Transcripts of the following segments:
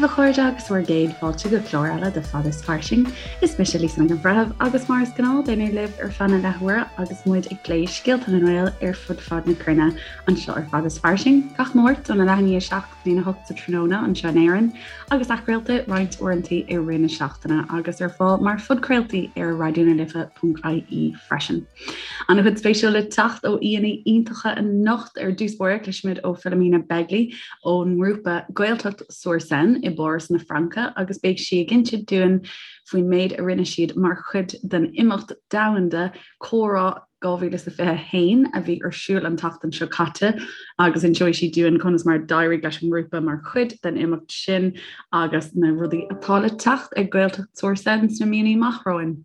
a chairde agus bhur gcéad fáilte go clár eile de Fad is Fairsing. Is mise Lisa Nic an Bhreithimh agus mar is gnáth beidh mé libh ar feadh na leathuaire agus muid ag plé scéalta na nGael ar fud fad na cruinne anseo ar Fad is Fairsing gach Máirt óna leath i ndiaidh 7 go dtína 8 sa tráthnóna anseo in Éirinn agus athchraolta roinnt uaireanta i rith na seachtaine agus ar fáil mar phodchraoltaí ar raidionalife.ie freisin. An-chuid spéisiúil le teacht ó aíonna iontacha anocht ar dtús báire cloisfimid ó Philomena Begley ón ngrúpa Gaeltacht sur Seine i bPáras na Fraince agus beidh sí ag insint dúinn faoin méid a rinne siad mar chuid den imeacht domhanda Comhrá 2021 a bhí ar siúl an tseachtain seo caite agus inseoidh sí dúinn conas mar a d'éirigh leis an ngrúpa mar chuid den imeacht sin agus na rudaí atá le teacht ag Gaeltacht sur Seine sna míonna amach romhainn.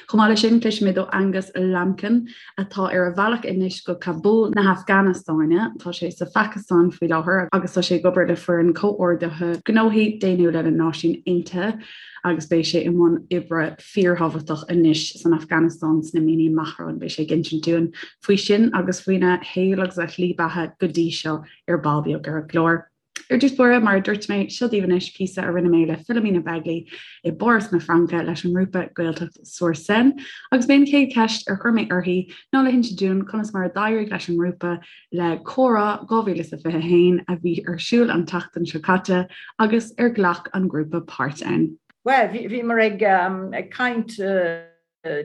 Chomh maith leis sin, cloisfimid ó Angus Lambkin, atá ar a bhealach anois go Kabul na hAfganastáine. Tá sé sa Phacastáin faoi láthair agus tá sé ag obair le foireann comhordaithe gnóthaí daonnúla na Náisiún Aontaithe agus beidh sé i mbun oibre fíorthábhachtach anois san Afganastáin sna míonna amach romhainn. Beidh sé ag insint dúinn faoi sin agus faoina shaol agus a shlí beatha go dtí seo ar ball beag ar an gclár. Ar dtús báire, mar a dúirt mé, seo daoibh anois píosa a rinne mé le Philomena Begley i bPáras na Fraince leis an ngrúpa Gaeltacht sur Seine agus b'é an chéad cheist ar chuir mé uirthi ná le hinse dúinn conas mar a d'éirigh leis an ngrúpa le Comhrá 2021 a bhí ar siúl an tseachtain seo caite agus ar ghlac an grúpa páirt ann. Bhuel, bhíomar ag caint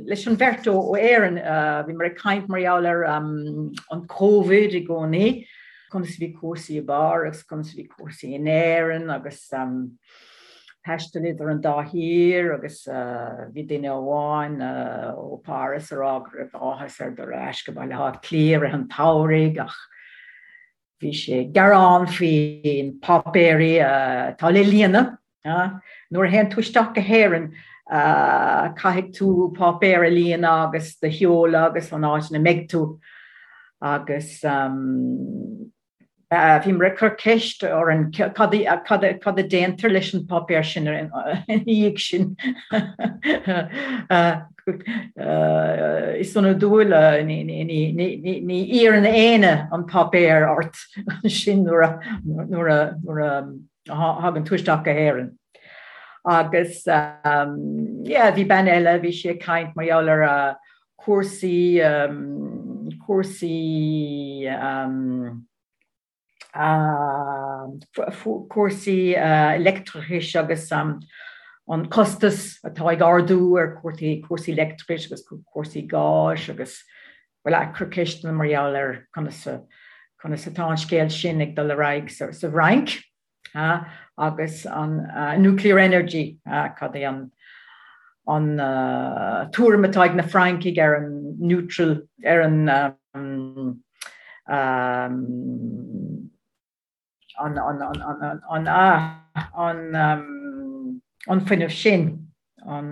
leis an bheirt ó Éirinn, bhíomar ag caint mar gheall ar an Covid i gcónaí, conas a bhí cúrsaí i bPáras, conas a bhí cúrsaí in Éirinn agus taisteal idir an dá thír agus bhí duine amháin ó Pháras ag rá go raibh áthas air dul ar ais go Baile Átha Cliath i rith an tsamhraidh ach Bhí sé ag gearán faoi na páipéirí atá le líonadh. Nuair a théann tú isteach go hÉirinn, caithfidh tú páipéar a líonadh agus do sheoladh agus an áit ina mbeidh tú. Agus bhíomar ag cur ceist orainn cad a déantar leis an páipéar sin ina dhiaidh sin. Is ionadúil, ní iarrann éinne an páipéar ort ansin nuair a thagann tú isteach go hÉirinn. Agus yeah, bhí bean eile, bhí sí ag caint mar gheall ar cúrsaí, cúrsaí, cúrsaí leictreachais agus an costas atá ag ardú ar cúrsaí leictreachais agus cúrsaí gáis agus bhuel ag cur ceisteanna mar gheall ar conas conas atá an scéal sin ag dul ar aghaidh sa Fhrainc agus an nuclear energy cad é an an tuairim atá ag na Francaigh ar an neutral ar an an fuinneamh sin, an,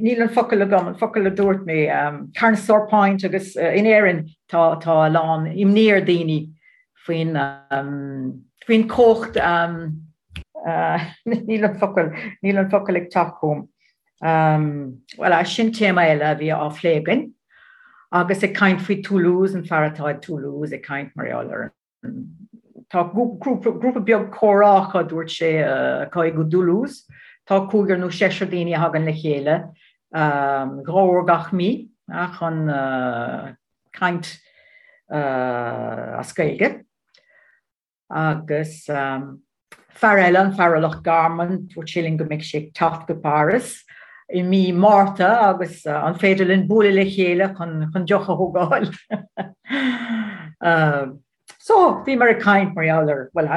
níl an focal agam, an focal a dúirt mé, Carnsore Point agus in Éirinn tá tá a lán imní ar daoine faoin faoin chumhacht, níl an focal, níl an focal ag teacht chugam. Bhuel, sin téama eile a bhí á phlé againn. Agus ag caint faoi Toulouse, an fear atá i Toulouse ag caint mar gheall ar an, tá grúpa beag comhrá acu, dúirt sé, acu i dToulouse. Tá cúigear nó seisear daoine a thagann le chéile dhá uair gach mí chun caint as Gaeilge. Agus fear eile, an fear ó Loch Garman, dúirt sé linn go mbeidh sé ag teacht go Páras i mí Márta agus an féidir linn bualadh le chéile chun deoch a thógáil. So, bhíomar ag caint mar gheall ar, bhuel,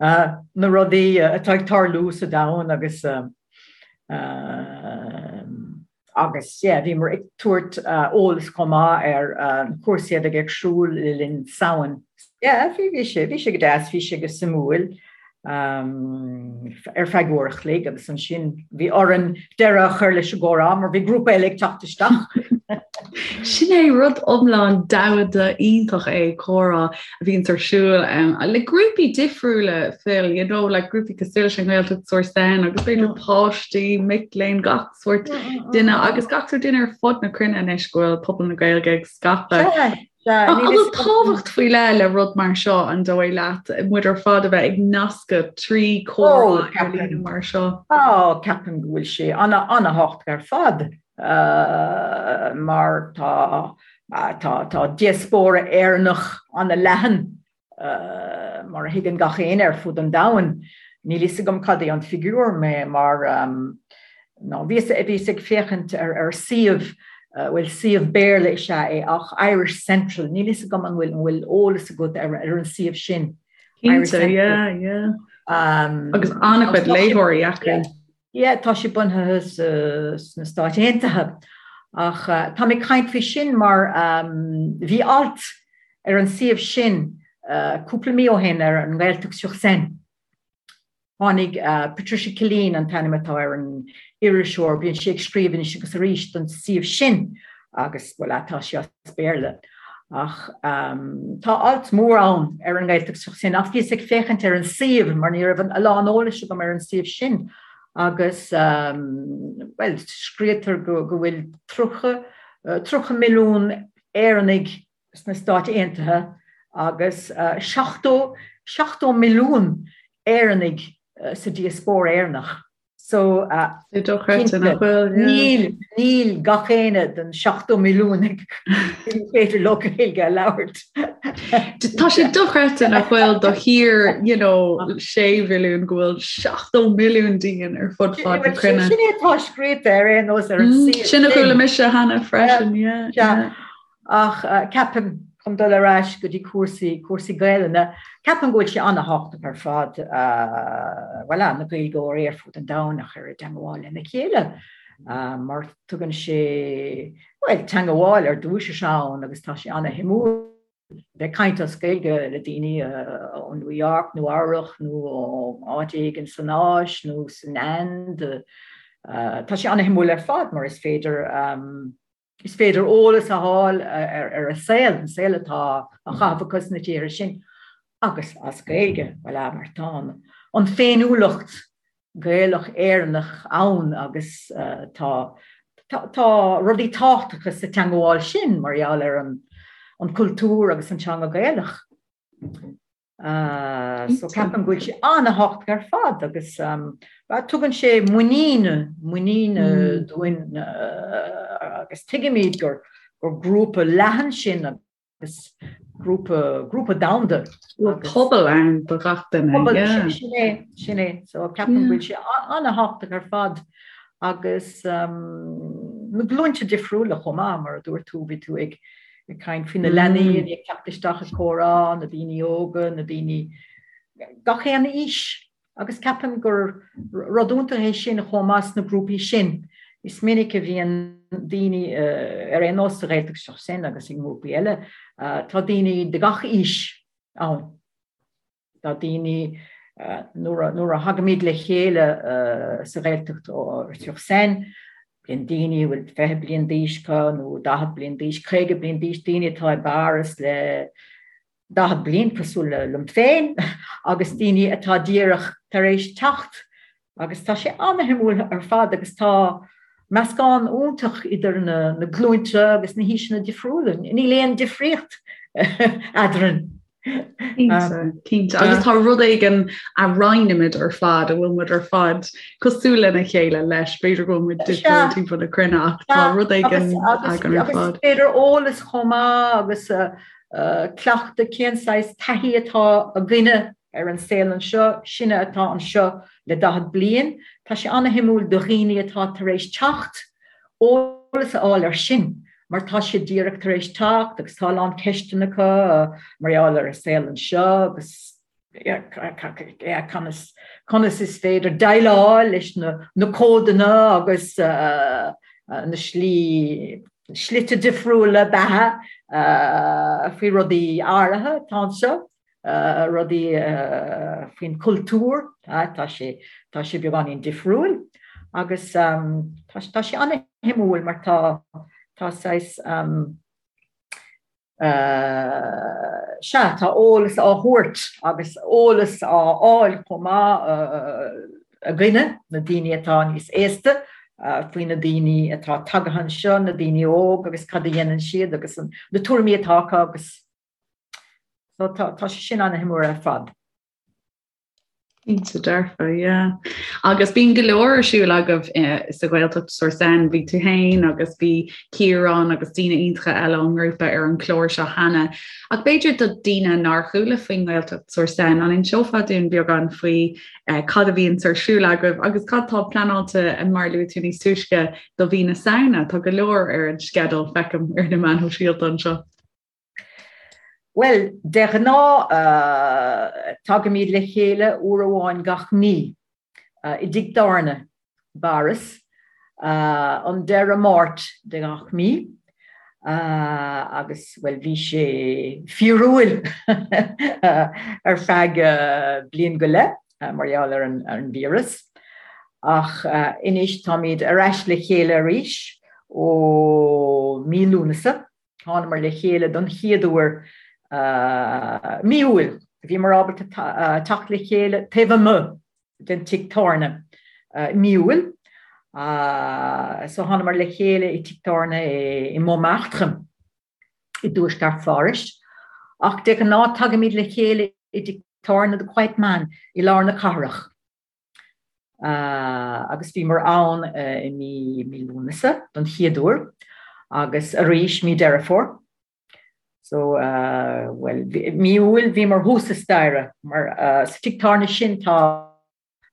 na rudaí atá ag tarlú sa domhan agus Agus yeah, bhíomar ag tabhairt eolas chomh maith ar na cúrsaí a bheidh ar siúl le linn Samhain. Yeah, bhí, bhí sé, bhí sé go deas, bhí sé go suimiúil ar feadh uair a chloig agus ansin bhí orainn deireadh a chur leis an gcomhrá mar bhí grúpa eile ag teacht isteach. Sin é rud iomlán domhanda iontach é comhrá a bhíonns ar siúl le grúpaí difriúla Phil, you know, like grúpaí cosúil leis an nGaeltacht sur Seine agus b'fhéidir páistí, mic léinn, gach sórt duine agus gach sórt duine ar fud na cruinne anois go bhfuil pobal na Gaeilge ag scaipeadh. An bhfuil tábhacht faoi leith le rud mar seo an dóigh leat muid ar fad a bheith ag nascadh trí chomhrá ar líne mar seo? Ó, ceapaim go bhfuil sé an-tábhachtach ar fad mar tá tá diaspóra Éireannach an-leathan mar a thuigeann gach éinne ar fud an domhain. Níl fhios agam cad é an figiúr mé mar nó bhíos bhíos ag féachaint ar ar suíomh bhuel suíomh Béarla is ea é ach Irish Central, níl fhios agam an bhfuil an bhfuil eolas agat ar ar an suíomh sin. Cinnte, yeah, yeah. Um, Agus an-chuid léitheoirí acu. Yeah, tá sé bunaithe sna Stáit Aontaithe. Ach tá mé ag caint faoi sin mar bhí alt ar an suíomh sin cúpla mí ó shin ar an nGaeltacht sur Seine. Tháinig Patricia Killeen an t-ainm atá ar an iriseoir, bíonn sí ag scríobh anois agus arís don suíomh sin agus, bhuel, tá sé as Béarla. Ach tá alt mór ann ar an nGaeltacht sur Seine ach bhíos ag féachaint ar an suíomh mar ní raibh a lán eolais agam ar an suíomh sin agus bhuel scríobhtar go go bhfuil 30 30 milliún Éireannaigh sna Stáit Aontaithe agus 70 70 milliún Éireannaigh sa diaspóra Éireannach. So, dochreidte nach bhfuil, yeah. Níl, níl gach éinne den 70 milliún ag féidir leo Gaeilge a labhairt. Tá sé dochreidte nach bhfuil do thír, you know, 6 mhilliún go bhfuil 70 milliún dínn ar fud fad na cruinne. Sin é atá scríofa ar aon nós ar an suíomh. Sin a chuala mise cheana freisin, yeah. Yeah. Ach ceapaim, chun dul ar ais go dtí cúrsaí, cúrsaí Gaelainne, ceapaim go bhfuil sé an-thábhachtach ar fad, bhuel, na Gaeilgeoirí ar fud an domhain a chur i dteangmháil lena chéile, mar tugann sé, bhuel, teangmháil ar dtús is ann agus tá sé an-shuimiúil bheith ag caint as Gaeilge le daoine ó New York, Nua Eabhrach nó ó áit éigin san Áis nó san Ind. Tá sé an-shuimiúil ar fad mar is féidir, Is féidir eolas a fháil ar an saol, an saol atá á chaitheamh acu sna tíortha sin agus as Gaeilge, voilà, mar tá an féiniúlacht Gaelach Éireannach ann agus tá tá rudaí tábhachtacha sa teangmháil sin mar gheall ar an cultúr agus an teanga Gaelach. So ceapaim go bhfuil sé an-thábhachtach ar fad agus tugann sé muinín, muinín dúinn agus tuigimid gur gur grúpa leathan sinn agus grúpa, grúpa domhanda. Bhfuil pobal ann do gach duine. Pobal, sin é, sin é. So ceapaim go bhfuil sé an-thábhachtach ar fad agus na glúinte difriúla chomh maith, mar a dúirt tú, bhí tú ag ag caint faoi na leanaí a bhí ag teacht isteach ag comhrá, na daoine óga, na daoine gach aon aois agus ceapaim gur rud iontach é sin chomh maith sna grúpaí sin. Is minic a bhíonn daoine ar aon nós sa Ghaeltacht sur Seine agus i ngrúpaí eile, tá daoine de gach aois ann. Tá daoine, nuair a thagaimid le chéile sa Ghaeltacht sur Seine, bíonn daoine a bhfuil 20 bliain d'aois acu nó 40 bliain d'aois, 50 bliain d'aois, daoine atá i bPáras le 40 bliain cosúil liom féin agus daoine atá díreach tar éis teacht Agus tá sé an-shuimiúil ar fad agus tá meascán iontach idir na glúinte agus na haoiseanna difriúla. Níl aon difríocht eadrainn. Cinnte, cinnte. Agus tá rud éigin a roinnimid ar fad, a bhfuil muid ar fad cosúil lena chéile leis, b'fhéidir go bhfuil muid difriúil timpeall na cruinne ach tá rud éigin againn ar fad. Agus b'fhéidir eolas chomh maith agus cleachtadh cén saghas taithí atá againne ar an saol anseo, sinne atá anseo le 40 bliain, tá sé an-shuimiúil do dhaoine atá tar éis teacht, eolas a fháil ar sin, mar tá siad díreach tar éis teacht agus tá a lán ceisteanna acu mar gheall ar an saol anseo agus conas, conas is féidir déileáil leis na, na códanna agus na slí, slite difriúla beatha faoi rudaí áirithe atá anseo. rudaí faoin chultúr, tá sé, tá sé beagáinín difriúil agus tá, tá sé an-shuimiúil mar tá, tá saghas, sea, tá eolas á thabhairt agus eolas á fháil chomh maith againne, na daoine atá níos aosta. faoi na daoine atá tagtha anseo, na daoine óg agus cad a dhéanann siad agus na tuairimí atá acu agus so tá sé sin an-shuimiúil ar fad. Cinnte dearfa, yeah. Agus bíonn go leor ar siúl agaibh eh, sa Ghaeltacht sur Seine, bhí tú féin agus bhí Ciarán agus daoine iontacha eile ón ngrúpa ar an chlár seo cheana. Ach b'fhéidir do daoine nár chuala faoin nGaeltacht sur Seine, an inseofá dúinn beagán faoi eh, cad a bhíonn ar siúl agaibh agus cad tá pleanáilte eh, mar luaigh tú níos túisce do mhí na Samhna, tá go leor ar an sceideal feicim ar na meáin shóisialta anseo. Bhuel, de ghnáth tagaimid le chéile uair amháin gach mí i dtigh tábhairne i bPáras, an deireadh Máirt de gach mí, agus, bhuel, bhí sé fíorúil ar feadh bliain go leith mar gheall ar an víreas, ach anois táimid ar ais le chéile arís ó mí Lúnasa. Thánamar le chéile don chéad uair mí Iúil. Bhíomar ábalta teacht le chéile taobh amuigh den tigh tábhairne mí Iúil. So thánamar le chéile i tigh tábhairne i Montmartre i dtuaisceart Phárais. Ach de ghnáth tagaimid le chéile i dtigh tábhairne The Quiet Man i lár na cathrach. agus bhíomar ann i mí Lúnasa don chéad uair agus arís mí Deireadh Fómhair. So, bhuel, mí Iúil bhíomar thuas sa staighre mar sa tigh tábhairne sin tá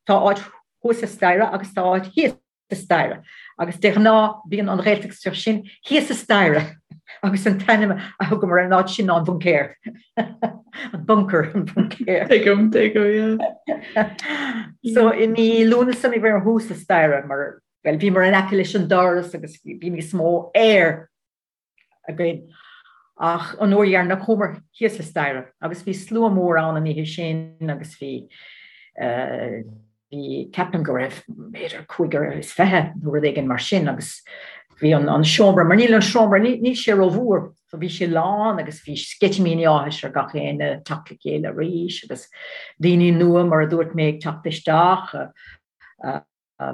tá áit thuas sa staighre agus tá áit thíos sa staighre agus de ghnáth bíonn an Ghaeltacht sur Seine thíos sa staighre agus an t-ainm a thugamar ar an áit sin ná an bhuncéir. An bunker, an buncéir. Tuigim, tuigim, yeah. So i mí Lúnasa bhíomar thuas sa staighre mar well bhíomar in aice leis an doras agus bhí níos mó aer againn. Ach an uair dheireanach chuamar thíos sa staighre agus bhí slua mór ann an oíche sin agus bhí bhí ceapaim go raibh b'fhéidir 25 nó rud éigin mar sin agus bhí an an seomra mar níl an seomra níl sé rómhór so bhí sé lán agus bhí sceitimíní áthais ar gach éinne teacht le chéile arís agus daoine nua mar a dúirt mé ag teacht isteach.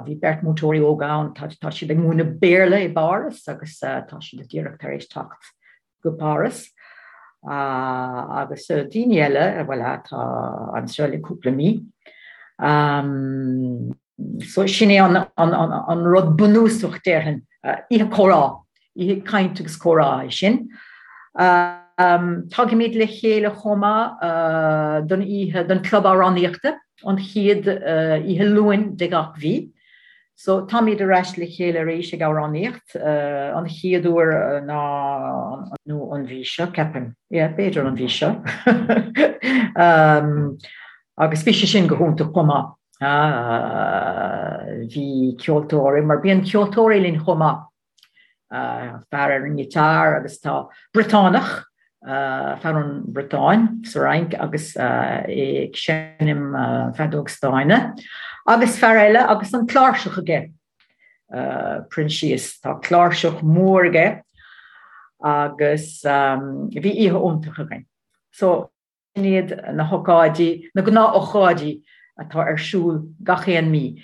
Bhí beirt múinteoirí óga ann, tá siad ag múineadh Béarla i bPáras agus tá siad díreach tar éis teacht go Páras. Agus daoine eile, bhuel, atá anseo le cúpla mí. So sin é an rud bunúsach déarfainn, oíche comhrá. Oíche caint agus comhrá é sin. Tagaimid le chéile chomh maith don oíche, don club amhránaíochta, an chéad oíche Luain de gach mhí. So táimid ar ais le chéile arís ag amhránaíocht, an chéad uair ná nó an mhí seo, ceapaim. Yeah, b'fhéidir an mhí seo. Agus bhí sé sin go hiontach chomh maith. Bhí ceoltóirí, mar bíonn ceoltóirí linn chomh maith. fear ar an ngiotár agus tá Briotánach, fear ón Bhriotáin sa Fhrainc agus é ag seinm feadóg stáin agus fear eile agus an cláirseach aige, Proinsias, tá cláirseach mór aige agus bhí oíche iontach againn. So sin iad na hócáidí, na gnáth-ócáidí atá ar siúl gach aon mí.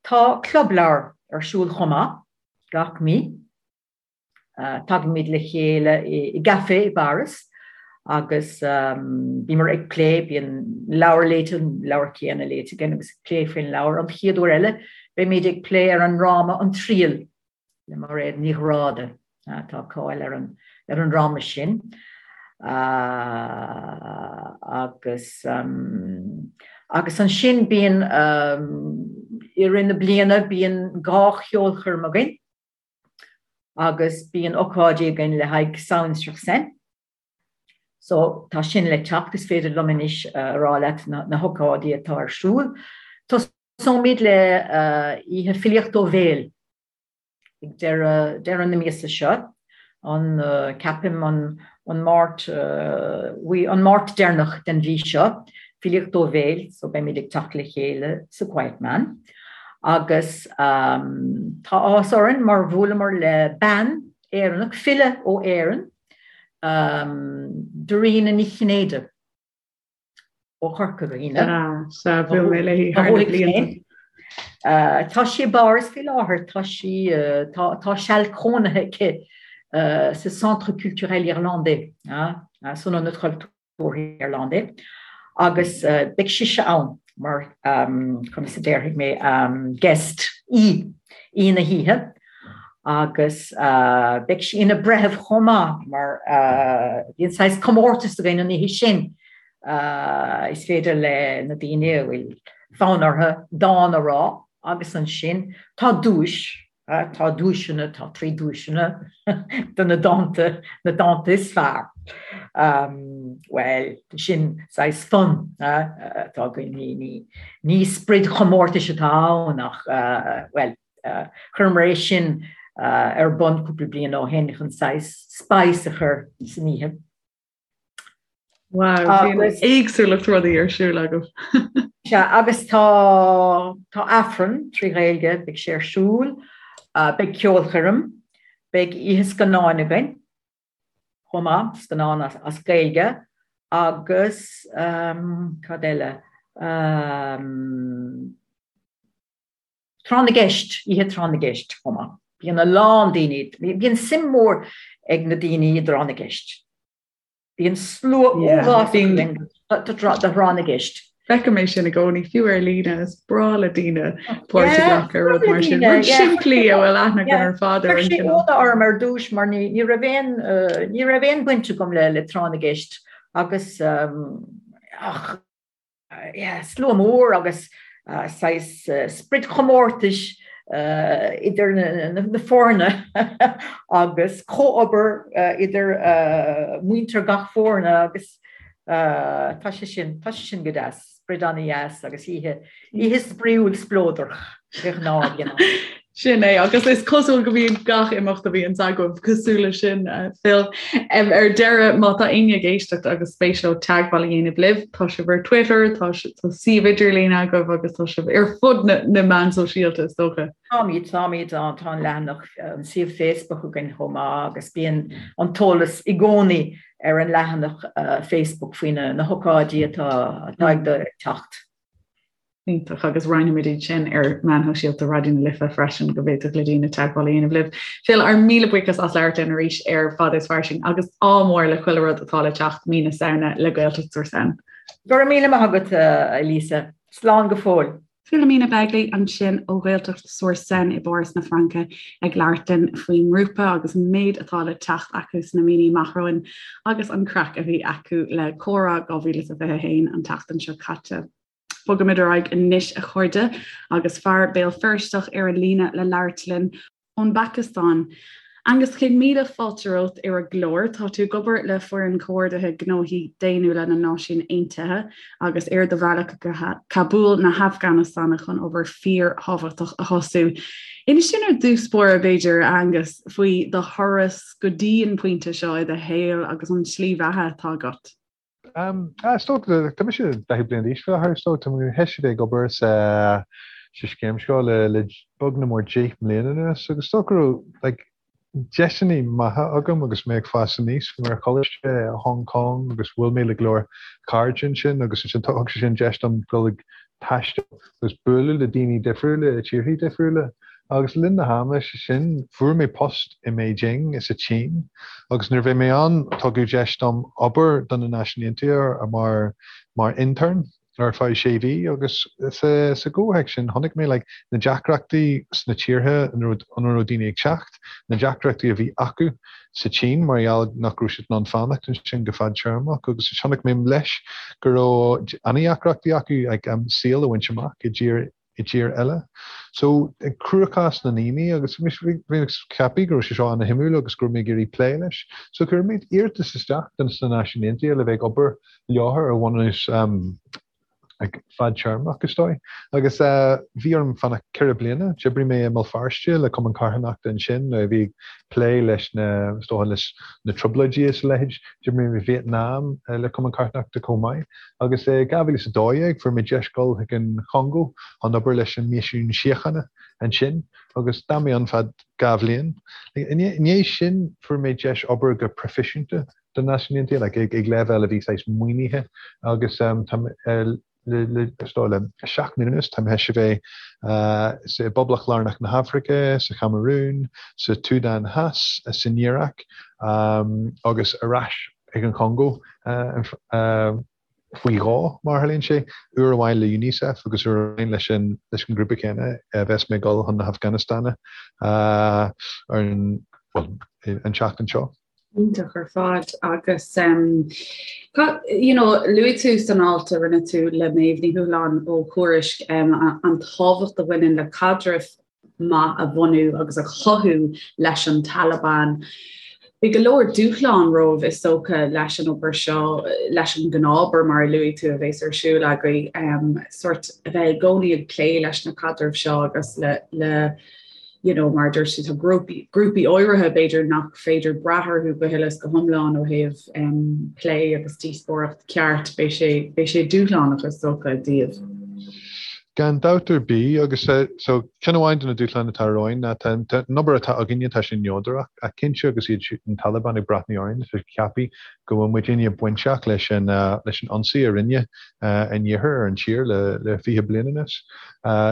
Tá club leabhar ar siúl chomh maith gach mí. Tagaimid le chéile i gcafé i bPáras agus bímar ag plé, bíonn leabhar léite, an leabhar céanna léite againn agus ag plé faoin leabhar. An chéad uair eile beimid ag plé ar an ndráma An Triail. le Mairéad Ní Ghráda. Tá cáil ar an ar an ndráma sin agus agus ansin bíonn i rith na bliana bíonn 2 cheolchoirm againn agus bíonn ocáidí againn le haghaidh Samhain sur Seine. So tá sin le teacht, is féidir liom anois a rá leat na hocáidí atá ar siúl. Tosóimid le oíche filíocht ó bhéal ag deireadh deireadh na míosa seo, an ceapaim an an Máirt an Máirt deireanach den mhí seo, filíocht ó bhéal, so beimid ag teacht le chéile sa Quiet Man. Agus tá áthas orainn mar bhuaileamar le bean Éireannach, file ó Éirinn, Dairena Ní Chinnéide ó Chorca Dhuibhne. Sea, bhuail mé léi thar na blianta. Tá sí i bPáras faoi láthair, tá sí, tá seal cónaithe aici sa Centre Culturel Irlandais, san Ionad Cultúrtha Irlandais, agus beidh sise ann mar, conas a déarfaidh mé, guest, aoi, aoi na hoíche, agus beidh sí ina breitheamh chomh maith mar bíonn saghas comórtas againn an oíche sin. Is féidir le na daoine a bhfuil fonn orthu dán a rá agus ansin tá duais, tá duaiseanna, tá 3 duaiseanna do na dánta, na dánta is fearr. Bhuel, sin saghas fun atá againn, ní, ní, ní sprid chomórtais atá ann ach, bhuel, chuireamar é sin ar bun cúpla bliain ó shin chun saghas spice a chur san oíche. Wow, bíonn éagsúlacht rudaí ar siúl agaibh. Sea, agus tá tá Aifreann 3 Ghaeilge, beidh sé ar siúl, beidh ceolchoirm, beidh oíche scannáin againn chomh maith, scannán as as Gaeilge agus cad eile? Tráth na gCeist, oíche Tráth na gCeist chomh maith. Bíonn a lán daoine, bíonn suim mhór ag na daoine i dTráth na gCeist. Bíonn slua uafásach againn do Thráth na gCeist. Feicim é sin i gcónaí, fiú ar líne, is breá le daoine páirt a ghlacadh i rud mar sin. Rud simplí a bhfuil aithne againn ar fad ar an Chuir sé ionadh orm ar dtús mar ní ní raibh aon ní raibh aon bhaint agam le le Tráth na gCeist agus ach yeah, slua mór agus saghas sprid chomórtais idir na foirne agus comhobair idir muintir gach foirne agus tá sé sin, tá sé sin go deas, sprid an-dheas agus oíche, oíche spraíúil spleodrach de ghnáth, you know. Sin é, agus is cosúil go mbíonn gach imeacht a bhíonns agaibh cosúil leis sin, Phil. Ar deireadh, má tá éinne ag éisteacht agus spéis leo teagmháil a dhéanamh libh, tá sibh ar Twitter, tá suíomh idirlín agaibh agus tá sibh ar fud na meán sóisialta, is dócha. Táimid, táimid, tá an leathanach, an suíomh Facebook againn chomh maith agus bíonn an t-eolas i gcónaí ar an leathanach Facebook faoi na hócáidí atá ag teacht. Iontach, agus roinnfimid iad sin ar meáin shóisialta Raidió na Life freisin go bhféadfadh le daoine teagmháil a dhéanamh libh. Phil, ár míle buíochas as labhairt linn arís ar Fada is Fairsing agus ádh mór le chuile rud atá le teacht mí na Samhna le Gaeltacht sur Seine. Go raibh míle maith agat, a Lisa. Slán go fóill. Philomena Begley ansin ó Ghaeltacht sur Seine i bPáras na Fraince ag labhairt linn faoin ngrúpa agus an méid atá le teacht acu sna míonna amach romhainn agus an craic a bhí acu le Comhrá 2021 an tseachtain seo caite. Bogaimid ar aghaidh anois a chairde agus fear Béal Feirsteach ar an líne le labhairt linn ón bPacastáin. Angus, 100,000 fáilte romhat ar an gclár. Tá tú ag obair le Foireann Comhordaithe Gnóthaí Daonnúla na Náisiún Aontaithe agus ar do bhealach go Cabúl na hAfganastáine chun obair fíorthábhachtach a thosú. Inis dúinn ar dtús báire, b'fhéidir, a Angus, faoi do thuras go dtí an pointe seo i do shaol agus an tslí bheatha atá agat. Is dócha, tá mise 40 bliain d'aois faoi láthair, is dócha, tá mé théis a bheith ag obair sa sa scéim seo le le beag nach mór 10 mbliana anuas agus is dócha go raibh like deiseanna maithe agam agus mé ag fás aníos. Bhí mé ar choláiste i Hong Kong agus bhuail mé le go leor cairde ansin agus ansin thug sé sin deis dom dul ag taisteal agus bualadh le daoine difriúla i tíorthaí difriúla. Agus le linn na hama sin, fuair mé post i mBeijing sa tSín agus nuair a bhí mé ann tugadh deis dom obair do na Náisiúin Aontaithe mar mar intern ar feadh sé mhí agus sa sa gcomhthéacs sin chonaic mé like na deacrachtaí sna tíortha ina raibh ina raibh daoine ag teacht, na deacrachtaí a bhí acu sa tSín mar gheall nach raibh siad in ann fanacht ansin go fadtéarmach agus chonaic mé leis go raibh an-deacrachtaí acu like saol a bhaint amach i dtír i dtír eile. So, cruachás na ndaoine agus bhí mé ag ceapadh go raibh sé seo ana-shuimiúil agus go raibh mé ag iarraidh plé leis. So chuir mé iarratas isteach do na Náisiúin Aontaithe le bheith ag obair leo ar bhunús fadtéarmach, is dóigh. Agus bhí orm fanacht ceithre bliana. D'oibrigh mé i mBéal Feirste le Cumann Carthanachta ansin nuair a bhí ag plé leis na, is dócha, leis na trioblóidí is a leithéid. D'oibrigh mé i Vietnam le Cumann Carthanachta chomh maith. Agus i 2012 fuair mé deis dul chuig an Chongó chun obair leis an Misiún Síochána ansin agus d'fhan mé ann feadh 2 bhliain. I ndiaidh sin fuair mé deis obair go proifisiúnta do Náisiúin Aontaithe, like ag leibhéal a bhí saghas maoinithe agus tá. Le 7 mbliana anuas, tá mé théis a bheith i bPoblacht Lárnach na hAfraice, sa Chamarún, sa tSúdáin Theas, san Iaráic agus ar ais ag an Chongó faoi dhó, mar a tharlaíonn sé, uair amháin le Unicef agus uair amháin leis an ngrúpa céanna a bheas mé ag dul chun na hAfganastáine ar an, bhuel, an tseachtain seo. Iontach ar fad agus you know, luaigh tú san alt a rinne tú le Méabh Ní Thuathaláin ó Thuairisc an tábhacht a bhaineann le caidreamh maith a bhunú agus a chothú leis an Taliban. Beidh go leor dúshlán romhaibh is dócha leis an obair seo, leis an gnáthobair mar a luaigh tú a bheas ar siúl agaibh, sórt a bheith i gcónaí ag plé leis na caidrimh seo agus le le you know, mar a dúirt tú, tá grúpaí, grúpaí áirithe b'fhéidir nach féidir brath orthu go huile is go hiomlán ó thaobh um, plé agus díospóireacht ceart, beidh sé, beidh sé dúshlánach is dócha daoibh. Gan dabht ar bith, agus so ceann amháin de na dúshláin atá romhainn ná tá an obair atá againne tá sé neodrach, ach cinnte agus iad siúd an Taliban ag breathnú orainn, tá siad ag ceapadh go bhfuil muidinne bainteach leis an leis an ionsaí a rinne an Iarthar ar an tír le le 20 bliain anuas.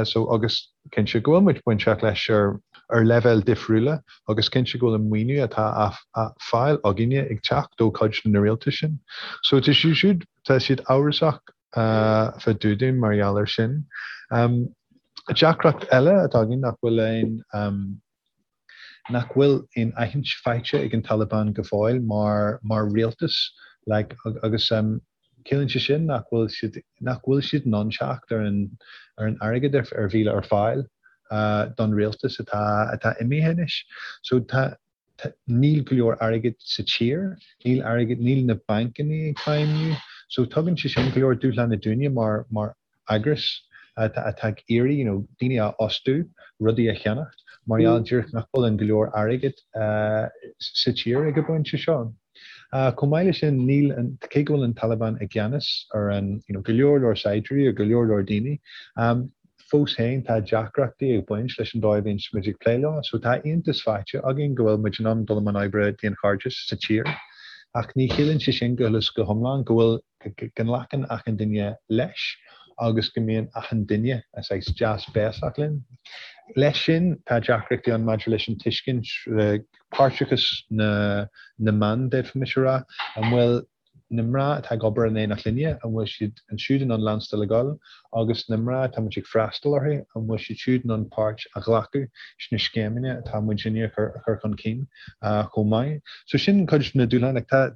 So agus cinnte go bhfuil muid bainteach leis ar ar leibhéil difriúla agus cinnte go bhfuil an maoiniú atá á fáil againne ag teacht ó chuid de na rialtais sin. So tá siad siúd tá siad amhrasach fá dtaobh dúinn mar gheall air sin. Deacracht eile atá againn nach bhfuil aon nach bhfuil aon aithint faighte ag an Taliban go fóill mar mar rialtas like agus ciallaíonn sé sin nach bhfuil siad nach bhfuil siad in ann teacht ar an ar an airgead ar ar bhí ar fáil don rialtas atá atá imithe anois. So tá Níl go leor airgid sa tír, níl airgead, níl na bancanna ag feidhmiú. So tugann sé sin go leor dúshláin dúinne mar mar eagras atá atá ag iarraidh you know daoine a fhostú, rudaí a cheannacht, mar gheall díreach nach bhfuil an go leor airgid sa tír ag an bpointe seo. Chomh maith leis sin, níl an, cé go bhfuil an Taliban i gceannas ar an you know go leor leor saighdiúirí ar go leor leor daoine, Fós féin, tá deacrachtaí ag baint leis an dóigh a bhíonn muid ag plé leo, so tá aontas faighte againn go bhfuil muid in ann dul i mbun oibre daonchairdis sa tír, ach ní chiallaíonn sé sin go huile is go hiomlán go bhfuil, go nglacann achan duine leis agus go mbíonn achan duine saghas deas béasach linn. Leis sin, tá deacrachtaí ann maidir leis an tuiscint, páirteachas na na mban, d'fhéadfaimis a rá, an bhfuil na mná atá ag obair in éineacht linne, an bhfuil siad ansiúd in ann leanstáil ag dul, agus na mná atá muid ag freastal orthu, an bhfuil siad siúd in ann páirt a ghlacadh sna scéimeanna atá muidinne a chur chun cinn chomh maith. So sin cuid de na dúshláin, like tá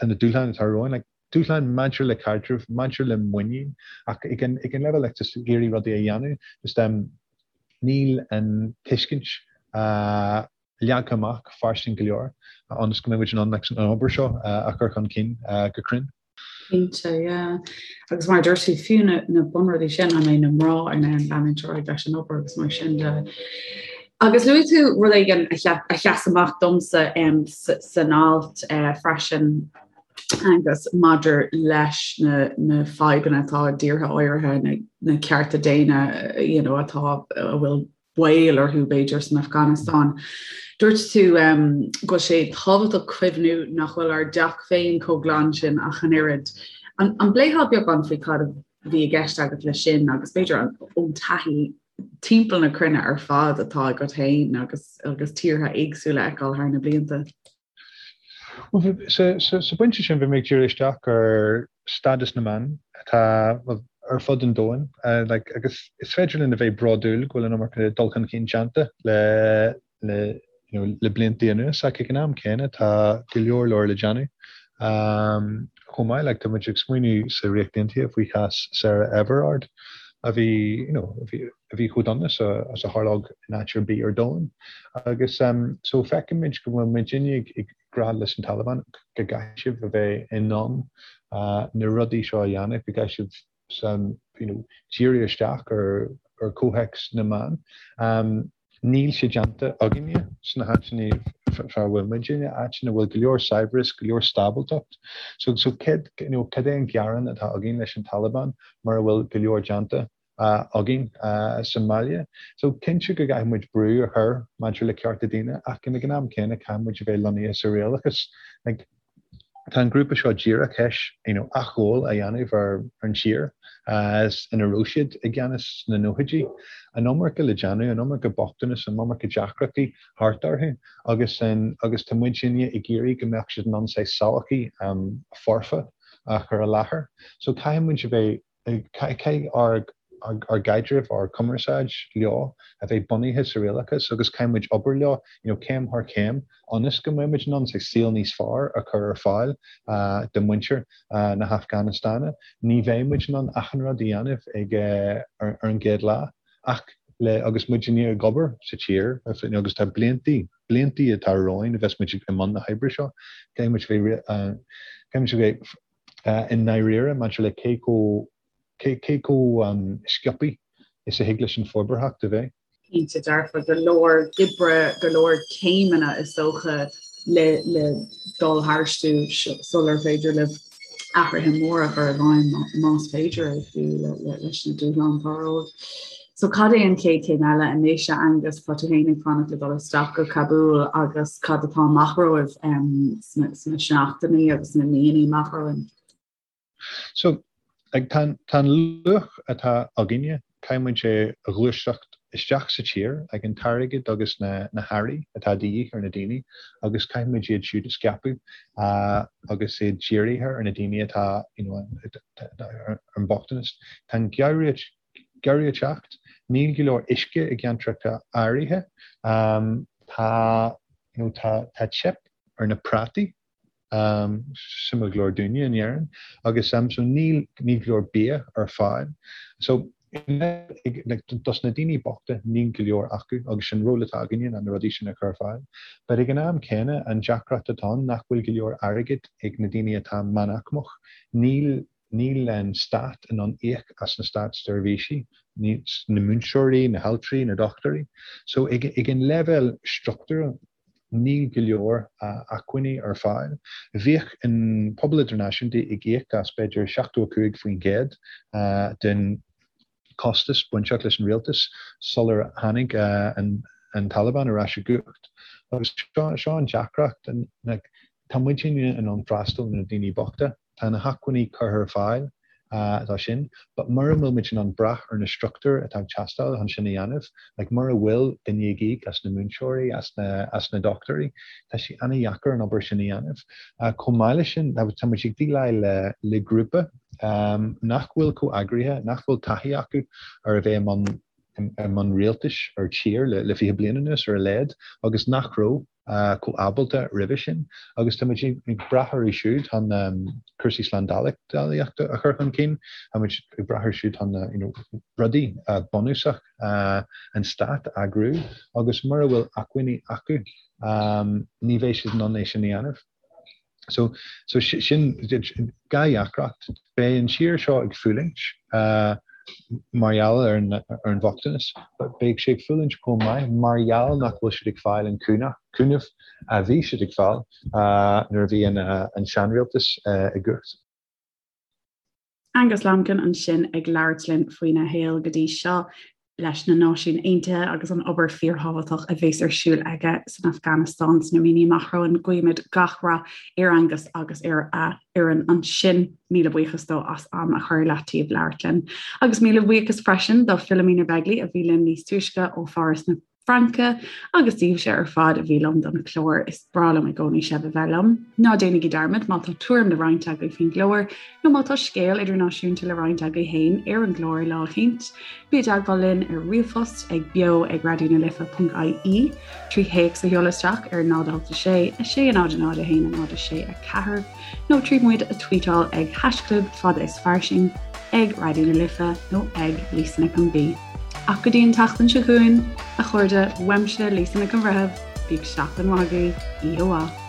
tá na dúshláin atá romhainn, like dúshláin maidir le caidreamh, maidir le muinín, ach ag an ag an leibhéal like just ag iarraidh rudaí a dhéanamh, just um níl an tuiscint leagtha amach fairsing go leor ionas go mbeidh muid in ann an obair seo a chur chun cinn go cruinn. Cinnte, yeah. Agus mar a dúirt tú, fiú na, na bunrudaí sin, an mbeidh na mná in ann leanúint ar aghaidh leis an obair agus mar sin de. Agus luaigh tú rud éigin a, a sheas amach domsa um, san alt uh, freisin agus maidir leis na, na fadhbanna atá i dtíortha áirithe, na, na cearta daonna you know, atá a bhfuil baol orthu, b'fhéidir, san Afganastáin. Dúirt tú go bhfuil sé tábhachtach cuimhniú nach bhfuil ár dteach féin chomh glan sin ach an oiread. An bpléifeá beagán faoi cad a bhí i gceist agat leis sin agus b'fhéidir ón taithí timpeall na cruinne ar fad atá agat féin agus agus tíortha éagsúla a fheiceáil thar na blianta? Sa bpointe sin, bhí mé ag díriú isteach ar stádas na mban atá ar fud an domhain agus is féidir linn a bheith bródúil go bhfuil an iomarca dul chun cinn déanta le le you know le blianta anuas ach ag an am céanna tá go leor leor le déanamh. Chomh maith, like tá muid ag smaoineamh sa Ríocht Aontaithe faoi chás Sarah Everard a bhí you know a bhí a bhí chomh dona is a tharlódh in áit ar bith ar domhan. Agus so feicimid go bhfuil muidinne ag rá leis an Taliban go gcaithfidh sibh a bheith in ann na rudaí seo a dhéanamh, go gcaithfidh sibh you know, díriú isteach ar ar chomhthéacs na mban. Níl sé déanta againne sna háiteanna fá bhfuil muidinne, áiteanna a bhfuil go leor saibhreas, go leor stábaltacht. So, so cad, you know, cad é an gearán atá againn leis an Taliban mura bhfuil go leor déanta againn sa mbaile. So cinnte go gcaithfidh muid brú a chur maidir le cearta daonna ach ag an am céanna caithfidh muid a bheith lonnaithe sa réalachas. Like, Tá an grúpa seo díreach théis you know athghabháil a dhéanamh ar an tír ina raibh siad i gceannas sna nóchaidí. An iomarca le déanamh, an iomarca bochtanas, an iomarca deacrachtaí thart orthu agus agus tá muidinne ag iarraidh go mbeadh siad in ann saghas sochaí foirfe a chur i láthair. So caithfidh muid a bheith Caithfidh ár gcaidreamh, ár gcumarsáid leo a bheith bunaithe sa réalachas agus caithfidh muid obair leo you know céim thar chéim ionas go mbeidh muid in ann saghas saol níos fearr a chur ar fáil do mhuintir na hAfganastáine. Ní bheidh muid in ann achan rud a dhéanamh ag ar an gcéad lá ach le agus muid ag obair sa tír agus tá bliantaí bliantaí atá romhainn a bheas muid i mbun na hoibre seo caithfidh muid bheith caithfidh muid a bheith i ndáiríre maidir le cé chomh cé chomh sciobtha is a thig leis an forbarthacht a bheith. Cinnte dearfa, go leor oibre, go leor céimeanna is dócha le le dul tharstu sular féidir libh athruithe móra a chur i bhfeidhm más féidir é fiú leis na dúshláin atá romhaibh. So cad é an chéad chéim eile anois a Aengus, tá tú féin ag fanacht le dul isteach go Cabúl agus cad atá amach romhaibh sna seachtainí agus sna míonna amach romhainn? So tá an luach atá againne, caithfidh muid é a ghluaiseacht isteach sa tír ag an t-airgead agus na hearraí atá de dhíth ar na daoine agus caithfidh muid iad siúd a scaipeadh agus iad dírithe ar na daoine atá you know ar an mbochtanas. Tá an geimhreadh ag teacht, níl go leor uisce i gceantracha áirithe, tá you know tá tá teip ar na prátaí, suimiúil go leor dúinne in Éirinn, agus so níl níl go leor bia ar fáil. So like dos na daoine bochta níl go leor acu agus sin ról atá againne ná na rudaí sin a chur ar fáil. But ag an am céanna an deacracht atá ann nach bhfuil go leor airgid ag na daoine atá meánaicmeach, níl Níl an stát in ann íoc as na státseirbhísí, na múinteoirí, na haltraí, na dochtúirí. So ag an leibhéal struchtúrtha níl go leor acmhainní ar fáil. Bhíodh an pobal idirnáisiúnta ag íoc as b'fhéidir 75% den costas bainteach leis an rialtas sular tháinig an Taliban ar ais i gcumhacht. Agus seo an deacracht, tá muidinne in ann freastal ar na daoine bochta, tá na hacmhainní curtha ar fáil dó sin, but mura bhfuil muid in ann brath ar na struchtúir atá ag teastáil chun sin a dhéanamh, like mura bhfuil duine ag íoc as na múinteoirí, as na as na dochtúirí, tá sé an-dheacair an obair sin a dhéanamh. Chomh maith leis sin, tá muid ag déileáil le le grúpa nach bhfuil chomh eagraithe, nach bhfuil taithí acu ar a bheith i mbun i mbun rialtais ar tír le 20 bliain anuas ar a laghad agus nach raibh chomh ábalta roimhe sin agus tá muid ag brath orthu siúd chun cúrsaí slándálaíochta a chur chun cinn, tá muid ag brath orthu siúd chun you know rudaí bunúsach an stát a eagrú agus mura bhfuil acmhainní acu ní bheidh siad in ann é sin a dhéanamh. So, so sin dhá dheacracht. Beidh an tír seo ag fulaingt mar gheall ar an, ar an bhochtanas, but beidh sé ag fulaingt chomh maith mar gheall nach bhfuil siad ag fáil an cúnamh a bhí siad ag fáil nuair a bhí an, an seanrialtas i gcumhacht. Angus Lambkin ansin ag labhairt linn faoina shaol go dtí seo leis na Náisiúin Aontaithe agus an obair fíorthábhachtach a bheas ar siúl aige san Afganastáin sna míonna amach romhainn. Guímid gach rath ar Angus agus ar a fhoireann ansin. Míle buíochas dó as am a chur i leataobh labhairt linn. Agus míle buíochas freisin do Philomena Begley a bhí linn níos túisce ó Pháras na Fraince agus daoibhse ar fad a bhí liom don chlár. Is breá liom i gcónaí sibh a bheith liom. Ná déanaigí dearmad má tá tuairim le roinnt agaibh faoin gclár nó má tá scéal idirnáisiúnta le roinnt agaibh féin ar an gclár lá eicínt, bí i dteagmháil linn ar ríomhphost ag beo ag raidionalife.ie, trí théacs a sheoladh isteach ar 0 8 6 6 0 0 1 0 6 4. nó trí muid a tweetáil ag haischlib fada is fairsing, ag Raidió na Life nó ag Lisa Nic an B. Ach go dtí an tseachtain seo chugainn, a chairde, uaimse Lisa Nic an Bhreithimh, bíodh seachtain mhaith agaibh, oíche mhaith.